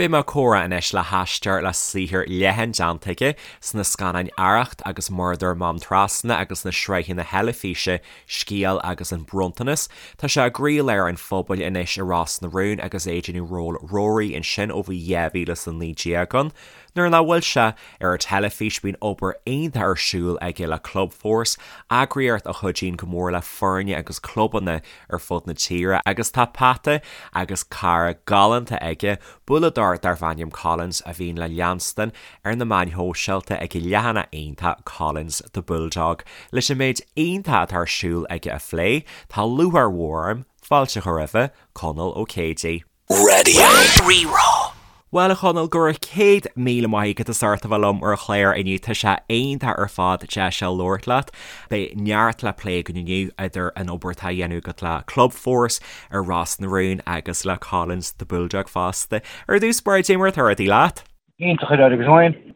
Beidh mé ag comhrá anois le haisteoir le saothar leathan déanta aige sna scannáin Arracht agus Murdar Mám Trasna agus sna sraitheanna teilifíse Scéal agus An Bronntanas. Tá sé i gcroílár an phobail anois i Ros na Rún agus é ag déanamh ról Rory ansin ó bhí 2019 ann. Nuair nach bhfuil sé ar an teilifís bíonn obair iontach ar siúl aige le Clubforce, eagraíocht a chuidíonn go mór le foirne agus clubanna ar fud na tíre agus tá peata agus cara galánta aige, bualladóir darbh ainm Collins a bhíonn le leanstan ar na meáin shóisialta ag a leathanach iontach Collins the Bulldog. Leis an méid iontach atá ar siúl aige a phlé, tá lúcháir mhór orm fáilte a chur roimhe, Conall Ó Céidigh. Raidió Rí-Rá. Bhuel a Chonaill, go raibh 100,000 maith agat as ucht a bheith liom ar an chlár inniu. Tá sé iontach ar fad deis a labhairt leat. Beidh neart le plé againn inniu idir an obair atá á dhéanamh agat le Clubforce, ar Ros na Rún agus le Collins the Bulldog fosta. Ar dtús báire, cad é mar atá rudaí leat? Iontach ar fad agus féin.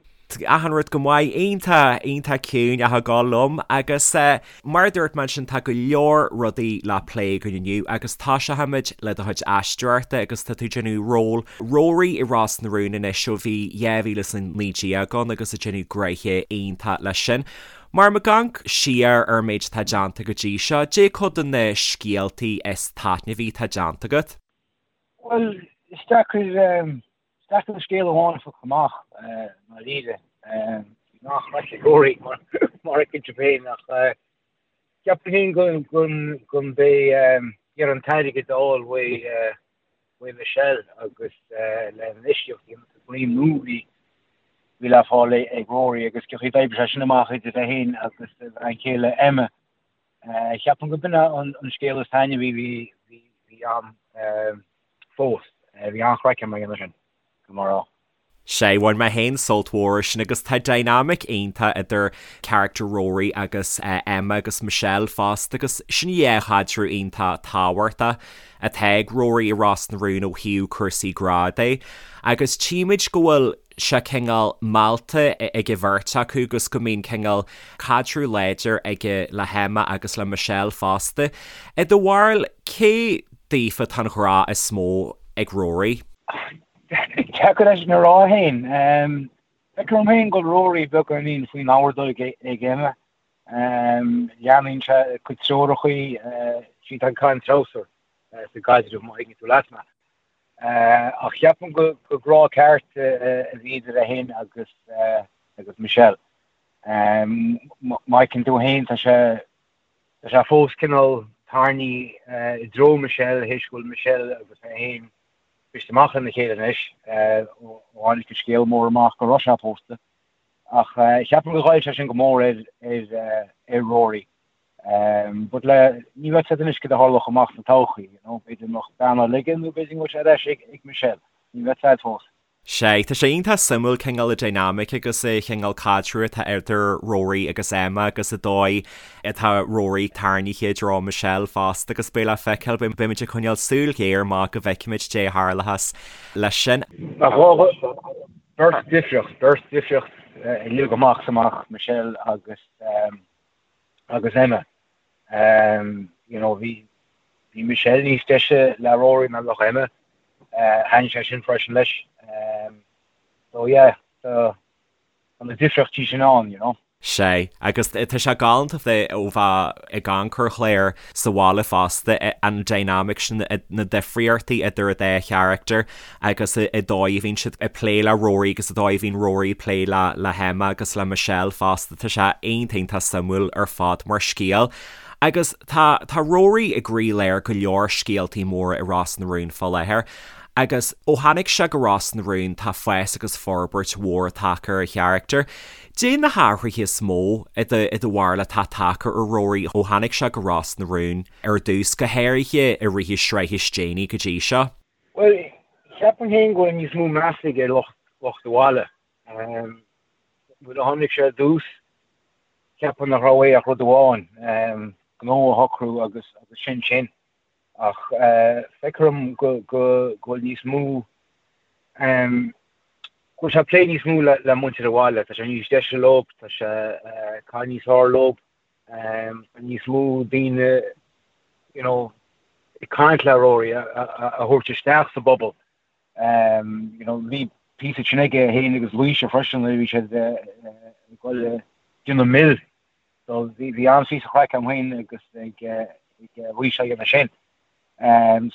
Achan rud go maith, iontach, iontach ciúin ach ag gabháil liom agus mar a dúirt mé ansin tá go leor rudaí le plé againn inniu agus tosóimid le do chuid aisteoireachta agus tá tú ag déanamh ról Rory i Ros na Rún anois ó bhí 2019 ann agus ag déanamh gnoithe iontach leis sin. Mar muid ag amharc siar ar an méid atá déanta go dtí seo, cad é cuid de na scéaltaí is taitneamhaí atá déanta agat? Bhuel, is deacair Is deacair scéal amháin a phiocadh amach, i ndáiríre. Bhí an-chraic ag Rory, mar a fheiceann tú féin, ach ceapaim féin go mba é iarraidh an t-airgead a fháil uaidh Michelle agus le hinfheistíocht a dhéanamh sa dream nua a bhí le fáil ag Rory agus cén chaoi a d'oibrigh sé sin amach idir é féin agus a bhean chéile Emma. Ceapaim go b'in an scéal is taitneamhaí a bhí ann. fós. Bhí an-chraic agam ag déanamh sin, go mar rá. Sea, bhain mé féin sult mhór as sin agus tá dynamic iontach idir character Rory agus Emma agus Michelle fosta agus sin dhá chaidreamh iontach tábhachtach atá ag Rory i Ros na Rún ó thaobh cúrsaí grá de agus tchímid go bhfuil sé cineál meallta ag an bheirt acu agus go mbíonn cineál caidreamh láidir aige le hEmma agus le Michelle fosta. I do bharúil, cé daofa atá an ghrá is mó ag Rory? Deacair é sin a rá féin. Feictear dom féin go bhfuil Rory beagáinín faoin ordóg ag Emma. Leanann sé a cuid treorachaí, sí atá ag caitheamh an treabhsar sa gcaidreamh, má thuigeann tú leat mé. Ach ceapaim go grá ceart a bhí idir é féin agus agus Michelle. Má fheiceann tú féin tá sé tá sé fós cineál tarraingthe i dtreo Michelle théis go bhfuil Michelle agus é féin briste amach lena chéile anois ó tháinig an scéal mór amach go raibh sé pósta. Ach ceapaim go ghoill sé sin go mór ar ar ar Rory. But le, ní bheadh a fhios agat anois cad a tharlódh amach sa todhchaí, you know, b'fhéidir go mbeadh bean eile aige nó b'fhéidir go bhfuil sé ar ais ag Michelle, ní bheadh a fhios agat fós. Sea, tá sé iontach suimiúil cineál an dynamic agus an chineál caidreamh atá idir Rory agus Emma agus an dóigh atá Rory tarraingthe i dtreo Michelle fosta agus beidh le feiceáil, beimid ag coinneáil súil ghéar amach go bhfeicfimid cad é a tharlóchas leis sin. Ach beirt difriocht, beirt difriocht uilig amach is amach, Michelle agus. agus Emma. You know, bhí bhí Michelle níos deise le Rory ná le Emma. Thaitnigh sé sin freisin leis. So yeah, tá na difríochtaí sin ann, you know. Sea, agus tá sé galánta bheith ó bheith ag amharc ar an chlár sa bhaile fosta, an dynamic sin, na difríochtaí idir an dá charachtar agus an dóigh a bhíonn siad ag plé le Rory agus an dóigh a bhíonn Rory ag plé le le hEmma agus le Michelle fosta, tá sé iontach iontach suimiúil ar fad mar scéal. Agus tá tá Rory i gcroílár go leor scéaltaí móra i Ros na Rún fá láthair agus ó tháinig sé go Ros na Rún tá fás agus forbairt mhór tagtha ar a charachtar. Cad é na hathruithe is mó i do i do bharúil atá tagtha ar Rory ó tháinig sé go Ros na Rún ar dtús, go háirithe i rith na sraithe is déanaí go dtí seo? Bhuel, ceapaim féin go bhfuil níos mó meas aige ar lucht lucht an bhaile. Nuair a tháinig sé ar dtús, ceapaim nach raibh uaidh ach rud amháin, gnó a shocrú agus agus sin sin. Ach feictear dom go go go bhfuil níos mó go bhfuil sé ag plé níos mó le le muintir an bhaile. Tá sé níos deise leo, tá sé ag caitheamh níos fearr leo. Tá níos mó daoine you know ag caint le Rory a thabhairt isteach sa bpobal. You know, bhí píosa sin aige féin agus Laoise freisin nuair a bhí siad ag dul ag déanamh mil. So bhí bhí an-phíosa craic agam féin agus ag ag Laoise á dhéanamh sin.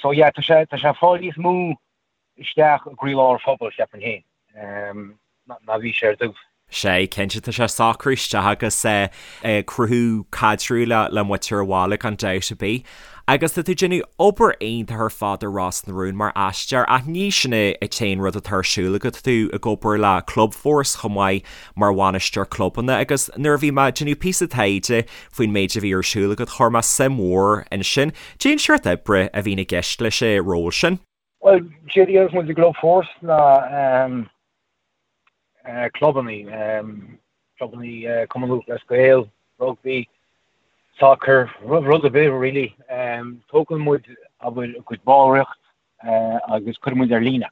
So yeah, tá sé tá sé ag fáil níos mó isteach i gcroílár an phobail, cheapfainn féin, ná bhí sé ar dtús. Sea, cinnte, tá sé ag socrú isteach agus ag cruthú caidreamh le muintir an bhaile gan dabht ar bith. Agus tá tú ag déanamh obair iontach ar fad ar Ros na Rún mar aisteoir ach ní sin an t-aon rud atá ar siúl agat, tá tú ag obair le Clubforce chomh maith mar bhainisteoir clubanna agus nuair a bhí mé ag déanamh píosa taighde faoin méid a bhí ar siúl agat chuir mé suim mhór ansin. Cén seort oibre a bhíonn i gceist leis an ról sin? Bhuel, séard a dhéananns muid i gClubforce ná clubannaí, clubannaí Cumann Lúthchleas Gael, rugbaí, sacar, rud ar bith really. Tógann muid abair a gcuid ballraíocht agus cuireann muid ar líne.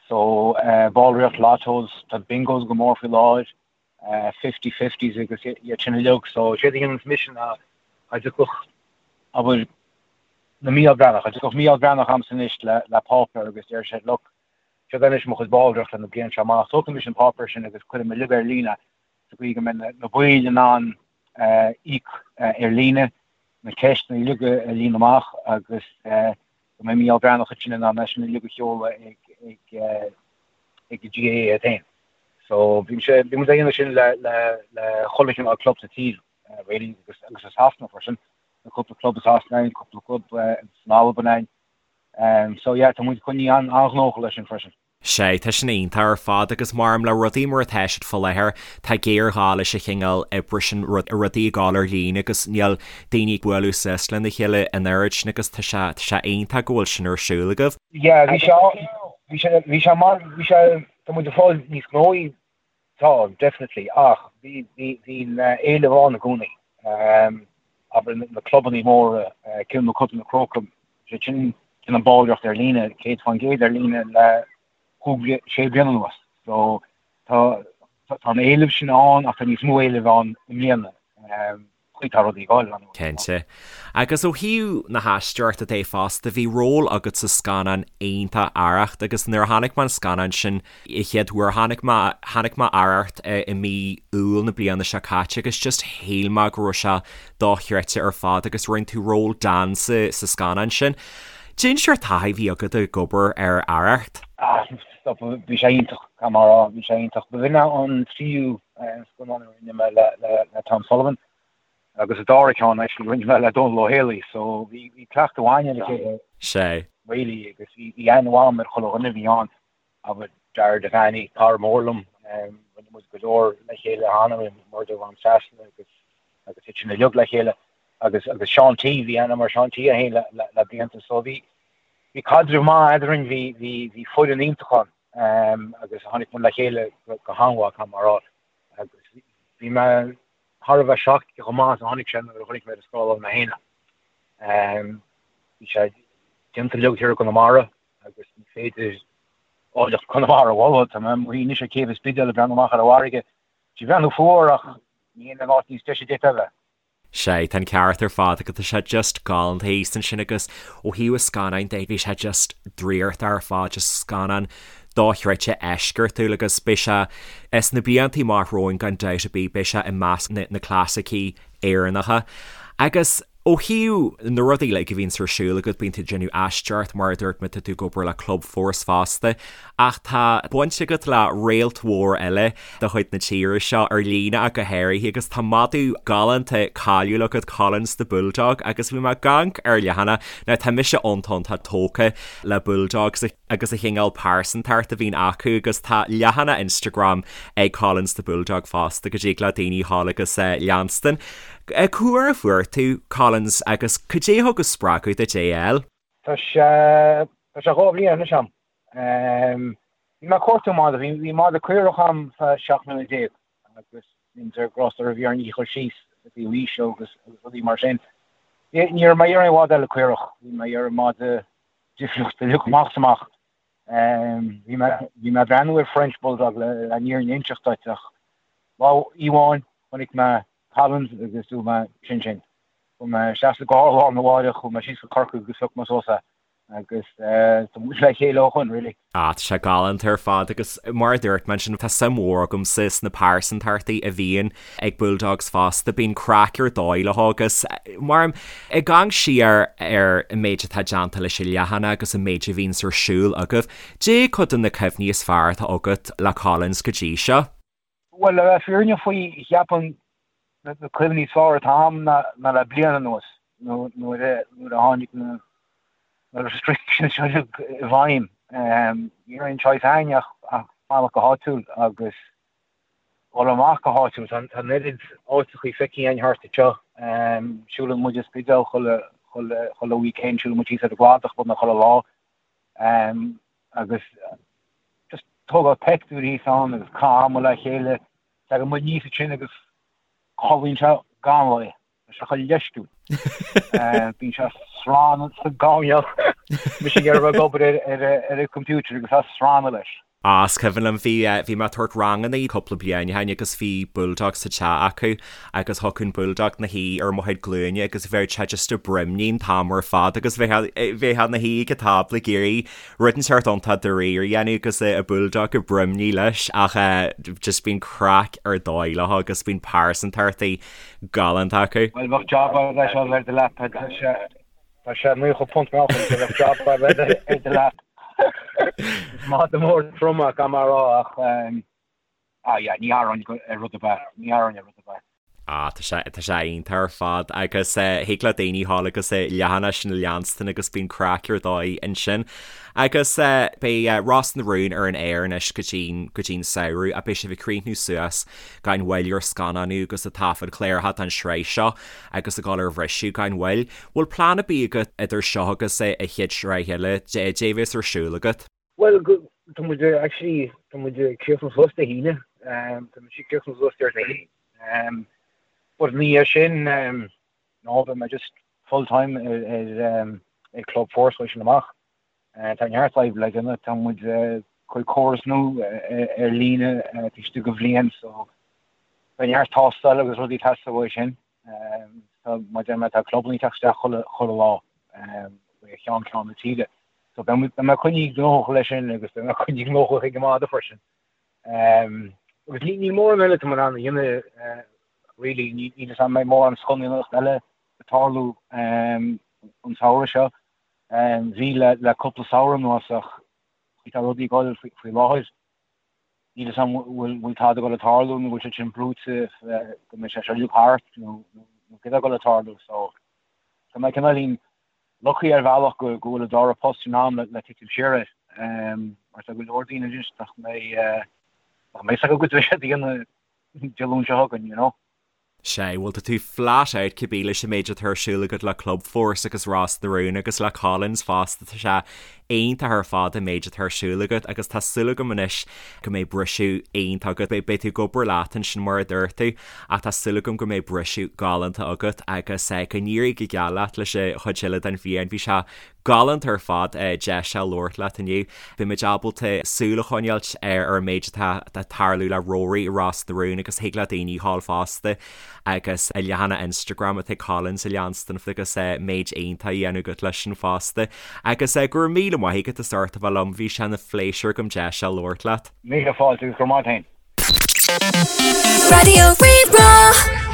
So ballraíocht, lottos, tá bingos go mór faoi láthair, fifty fifties agus iad sin uilig. So séard a dhéananns mise ná dá dtiocfadh abair na Mícheál Breathnach, dá dtiocfadh Mícheál Breathnach chugamsa anois le le páipéar agus deir sé look, seo anois mo chuid ballraíocht le na bliain seo amach, tógfaidh mise an páipéar sin agus cuirfidh mé uilig ar líne sa gcaoi go mbeidh na baill in ann íoc ar líne, na ceisteanna uilig a líonadh amach agus go mbeidh Mícheál Breathnach ansin in ann é sin uilig a sheoladh ag ag ag an GAA iad féin. So bhí sé bhí muid ag déanamh sin le le le chuile chineál club sa tír really agus agus i Sasana freisin. Tá cúpla club i Sasana ann, cúpla club san Albain ann. Um, so yeah, tá muid coinnithe an-ghnóthach leis sin freisin. Sea, tá sin iontach ar fad agus maram le rudaí mar atá siad fá láthair, tá géarghá leis an chineál oibre sin, rudaí ag gabháil ar líne agus níl daoine ag bualadh suas lena chéile an oiread sin agus tá sé, tá sé iontach go bhfuil sin ar siúl agaibh. Yeah, bhí sé, bhí sé, bhí sé mar, bhí sé, tá muid ag fáil níos gnóthaí, tá, definitely, ach bhí, bhí, bhí an éileamh ann i gcónaí. Abair na clubannaí móra, Cill Mochuda, na Crócaigh, sé sin, déanamh ballraíocht ar líne, 100% ar líne le cúig, sé bliana anuas. So tá, tá an éileamh sin ann ach tá níos mó éilimh ann i mbliana. Chaoi tá rudaí ag gabháil ann. Cinnte. Agus ó thaobh na haisteoireachta de fosta, bhí ról agat sa scannán iontach Arracht agus nuair a chonaic mé an scannán sin, an chéad uair, chonaic mé, chonaic mé Arracht i mí Iúil na bliana seo caite agus just shíl mé go raibh sé dochreidte ar fad agus rinne tú ról Dan sa, sa scannán sin. Cén seort taithí a bhí agat ag obair ar Arracht? Ah, stop, bhí sé iontach, caithfidh mé a rá, bhí sé iontach. Ba shin é an tríú scannán a rinne mé le, le, le Tom Sullivan agus an dara ceann actually rinne mé le Dónal Ó Héalaí, so bhí, bhí cleachtadh againn ar a chéile. Sea. Really, agus bhí, bhí aithne mhaith agam ar chuile dhuine a bhí ann. Abair Dara Devaney, cara mór liom, rinne muid go leor le chéile cheana, rinne muid Murdair Mhám Trasna agus agus iad sin uilig le chéile agus agus Seán T, bhí aithne agam ar Seán T é féin le le le blianta so bhí bhí caidreamh maith eadrainn, bhí bhí bhí foireann iontach ann agus tháinig muid le chéile go go han-mhaith caithfidh mé a rá agus bhí mé thar a bheith shocked chomh maith is a tháinig sé nuair a chonaic mé ar an scáileán mé féin é. Bhí sé déanta uilig thiar i gConamara agus ní féidir áilleacht Chonamara a mholadh. Tá mé amuigh anois ar chéibh an Spidéil ag breathnú amach ar an bhfarraige. Tá sí ag breathnú fuar ach ní in áit níos deise a d'fhéadfá a bheith. Sea, tá an ceart ar fad agat, tá sé just galánta thíos ansin agus ó thaobh an scannáin de bhí sé just draíochtach ar fad, just scannán dochreidte eisceachtúil agus beidh sé sna blianta amach romhainn gan dabht ar bith, beidh sé i measc na clasaicí Éireannacha. Agus. Ó thaobh na rudaí uilig a bhíonns ar siúl agat, bíonn tú ag déanamh aisteoireacht, mar a dúirt mé, tá tú ag obair le Clubforce fosta, ach tá baint agat le réalt mhór eile de chuid na tíre seo, ar líne ach go háirithe, agus tá madadh galánta cáiliúil agat, Collins the Bulldog, agus bhí mé ag amharc ar leathanach, now tá mise iontach iontach tógtha le bulldogs agus an chineál pearsantacht a bhíonn acu agus tá leathanach Instagram ag Collins the Bulldog fosta go dtig le daoine dhul agus leanstan. Cá huair a fuair tú Collins agus cad é a thug an spreagadh duit é a fháil? Tá sé tá sé 2 bhliain anois a'm. Bhí mé ag cuartú madadh, bhí bhí madadh caorach a'm feadh 17 mbliana agus bhí ar gcros a bhí ar ní chur síos i dtaobh aoise agus agus rudaí mar sin. Ní raibh mé ag iarraidh aon mhadadh eile caorach, bhí mé ag iarraidh madadh difriúil uilig amach is amach. Bhí mé bhí mé ag breathnú ar French Bulldog le le an fhírinne a inseacht duit ach lá amháin chonaic mé Collins agus dúirt mé sin sin. Chuaigh mé isteach sa gcarr lá arna mháireach, chuaigh mé síos go Corcaigh agus phioc mé suas é. Agus tá muid le chéile ó shoin, really. Ah, tá sé galánta ar fad agus mar a dúirt mé ansin, tá suim mhór agamsa sna pearsantachtaí a bhíonn ag Bulldogs fosta, bíonn craic ar dóigh leo agus mar ag amharc siar ar an méid atá déanta leis an leathanach agus an méid a bhíonns ar siúl agaibh, Dé cuid de na cuimhní is fearr atá agat le Collins go dtí seo? Bhuel, le bheith fírinneach faoi, cheapfainn na cuimhní is fearr atá agam ná le bliain anuas, nuair a tháinig na restrictions seo i bhfeidhm. Ní raibh aon choice againn ach fanacht go háitiúil agus dul amach go háitiúil. Tá an oiread áiteachaí feicthe againn thart anseo. Siúlann muid an Spidéal chuile weekend, siúlann muid síos ar an gCladach beagnach chuile lá. Agus just tógáil peictiúir thíos ann agus caitheamh ama le chéile. Tagann muid aníos ansin agus codlaíonn sé gan mhoill. Tá sé chomh leisciúil. Bíonn sé ag srannadh sa gcoirnéal. Mise ag iarraidh bheith ag obair ar an computer agus é ag srannadh leis. Á, is cuimhin liom, bhí, bhí mé ag tabhairt ranganna cúpla bliain ó shin agus bhí bulldog sa teach acu agus thiocfadh an bulldog 'na shuí ar mo chuid glúine agus bheadh sé just ag broimní an t-am ar fad agus bheifeá, bheifeá 'na shuí ag an tábla ag iarraidh rud inteacht iontach dáiríre a dhéanamh agus an bulldog ag broimní leis ach just bíonn craic ar dóigh leo agus bíonn pearsantachtaí galánta acu. Bhuel, bheadh job agat leis ar do leapa, tá sé, tá sé 90 punt meáchain, so bheadh job agat ar do leap. Is madadh mór trom é, gan mar a rá, ach ah yeah, ní tharraing ar rud ar bith, ní tharraing ar rud ar bith. Ah, tá sé, tá sé iontach ar fad agus thig le daoine a ghabháil agus an leathanach sin a leanstan agus bíonn craic ar dóigh ansin. Agus beidh Ros na Rún ar an aer anois go dtí'n, go dtí'n samhradh ach beidh sibh ag críochnú suas gan mhoill ar scannánú agus ag taifead cláracha don sraith seo agus ag dul ar bhriseadh gan mhoill. Bhfuil plean ar bith agat idir seo agus an chéad sraith eile, dé bhéas ar siúl agat? Bhuel, tá muid actually, tá muid ag críochnú suas Dé hAoine, tá muid ag críochnú suas Déardaoin. But ina dhiaidh sin, no, beidh mé just full time ar ar Club Force uaidh sin amach. Tá neart oibre le déanamh, tá muid ag cur córas nua ar líne taobh istigh de bhliain, so beidh neart tástáil agus rudaí ag teastáil uaidh sin. So mar a deir mé tá clubanna ag teacht isteach chuile chuile lá ó cheann ceann na tíre. So beidh mé coinnithe gnóthach leis sin agus beidh mé coinnithe gnóthach ag an madadh freisin. Agus níl mórán eile atá mé in ann a dhéanamh really, níl a fhios agam an mbeidh mórán scannánaíocht eile ag tarlú an samhradh seo. Bhí le le cúpla samhradh anuas ach tá rudaí ag dul faoi láthair. Níl a fhios agam bhfuil bhfuil tada ag dul ag tarlú nó bhfuil sé sin brúite go mbeidh sé seo uilig thart nó nó céard atá ag dul ag tarlú so tá mé cineáilín lucky ar bhealach go go bhfuil an dara post sin agam le le titim siar air mar tá go leor daoine anois nach mbeidh nach mbeidh a fhios acu goidé a bheidh siad a dhéanamh Dé Luain seo chugainn you know. Sea, bhuel tá tú flat out cibé leis an méid atá ar siúl agat le Clubforce agus Ros na Rún agus le Collins fosta, tá sé iontach ar fad an méid atá ar siúl agat agus tá súil agam anois go mbeidh briseadh iontach agat. Beidh tú ag obair leat ansin mar a dúirt tú ach tá súil agam go mbeidh briseadh galánta agat agus go n-éirí go geal leat leis an chuid eile den bhliain. Bhí sé Galánta ar fad deis a labhairt leat inniu. Beidh muid ábalta súil a choinneáilt ar an méid atá ag tarlú le Rory i Ros na Rún agus thig le daoine a ghabháil fosta agus an leathanach Instagram atá ag Collins a leanstan agus méid iontach á dhéanamh agat leis sin fosta. Agus go raibh míle maith agat as ucht a bheith liom, bhí sé ina phléisiúr agam deis a labhairt leat. Míle fáilte agus go raibh maith agat féin. Raidió Rí-Rá.